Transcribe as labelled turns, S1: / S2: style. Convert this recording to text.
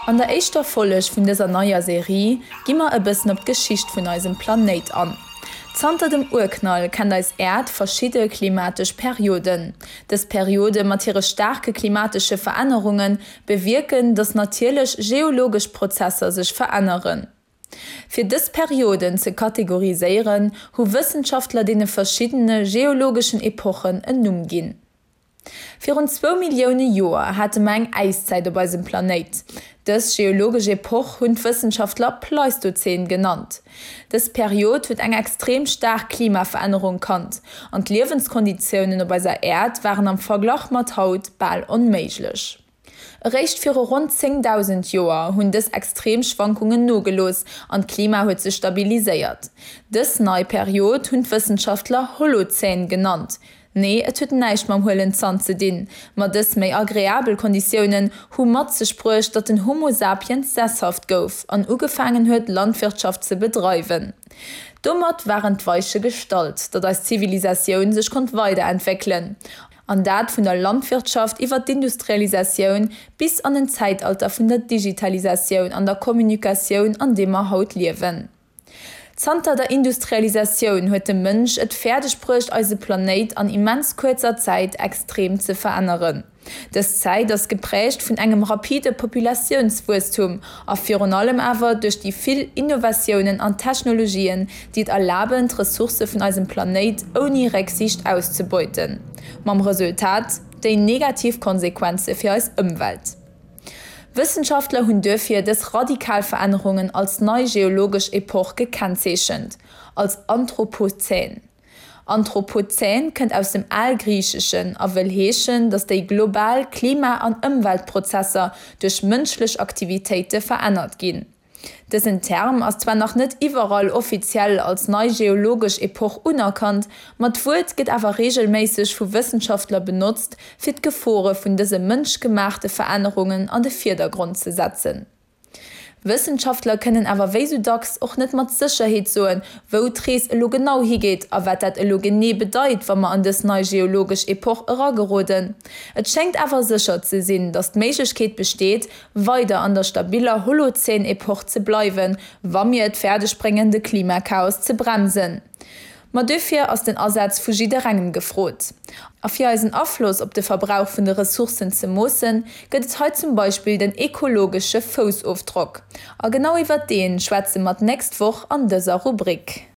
S1: An der éischter Folleg vun dëser neier Serie gi mer e bëssen op d'Geschicht vun eisem Planéit an. Zanter dem Urknall kennt eis Äerd verschidde klimatesch Perioden. Dës Periode mat hire staarke klimatesche Verännerunge bewierken, datt natierlech geologesch Prozesser sech veränneren. Fir dës Perioden ze kategoriséieren, hu Wëssenschaftler deene verschiddene geologeschen Epochen en Numm ginn. Virun zwou Millioune Joer hate mer eng Äiszäit op eisem Planéit. Dës geologesch Epoch hunn d'Wëssenschaftler Pleistozän genannt. Dës Period huet eng extrem staark Klimaverännerung kannt an d'Liewenskonditiounen op eiser Äerd waren am Verglach mat haut bal onméiglech. Eréischt viru ronn 10.000 Joer hunn dës extrem Schwankungen nogelooss an d'Klima huet sech stabiliséiert. Dës nei Period hunn d'Wëssenschaftler Holozän genannt. Nee, et huet näischt mam huelen Zant ze dinn, ma dës méi agreabel Konditiounen hu mat sech bruecht, datt den Homo sapiens sesshaft gouf an ugefaangen huet, Landwirtschaft ze bedreiwen. Domat waren d'Weiche gestallt, datt eis Zivilisatioun sech konnt weiderentwéckelen. An dat vun der Landwirtschaft iwwer d'Industrialisatioun bis an den Zäitalter vun der Digitalisatioun an der Kommunikatioun, an deem mer haut liewen. Zanter der Industrialisatioun huet de Mënsch et fäerdeg bruecht, eise Planéit an immens kuerzer Zäit extrem ze veränneren. Dës Zäit ass geprägt vun engem rapide Populatiounswuesstum a virun allem awer duerch déi vill Innovatiounen an Technologien, déi et erlaben, d'Ressourcë vun eisem Planéit ouni Récksiicht auszebeuten. Mam Resultat, déi negativ Konsequenze fir eis Ëmwelt. Wëssenschaftler hunn duerfir dës radikal Verännerungen als nei geologesch Epoch gekennzeechent, als Anthropozän. Anthropozän kënnt aus dem Algriicheschen a wëll heeschen, datt déi global Klima an Ëmweltprozesser duerch mënschlech Aktivitéite verännert ginn. Dësen Term ass zwar nach net iwwerall offiziell als nei geologesch Epoch unerkannt, ma d'Wuert gëtt awer reegelméisseg vu Wëssenschaftler benotzt, fir d'Gefore vun dëse mënschgemaachte Verännerungen an de Virdergrond ze setzen. Wëssenschaftler kënnen awer wéi sou dacks och net mat Sécherheet soen, wou d'Rees elo genau higeet a wat dat elo genee bedeit, wa mer an dës nei geologesch Epoch erageroden. Et schéngt awer sécher ze sinn, datt d'Méiglechkeet besteet, weider an der stabiller Holozän-Epoch ze bleiwen, wa mir et fäerdeg bréngen, de Klimachaos ze bremsen. Ma duerfir ass den Asaz vu jidderengem gefrot. A fir eisen Afloss op de Verbrauch vun de Ressourcen ze moossen, gëtt et hei zum Beispill den ekologesche Foussofdrock. A genau iwwert dee schwätze mer d'nächst Woch an dëser Rubrik.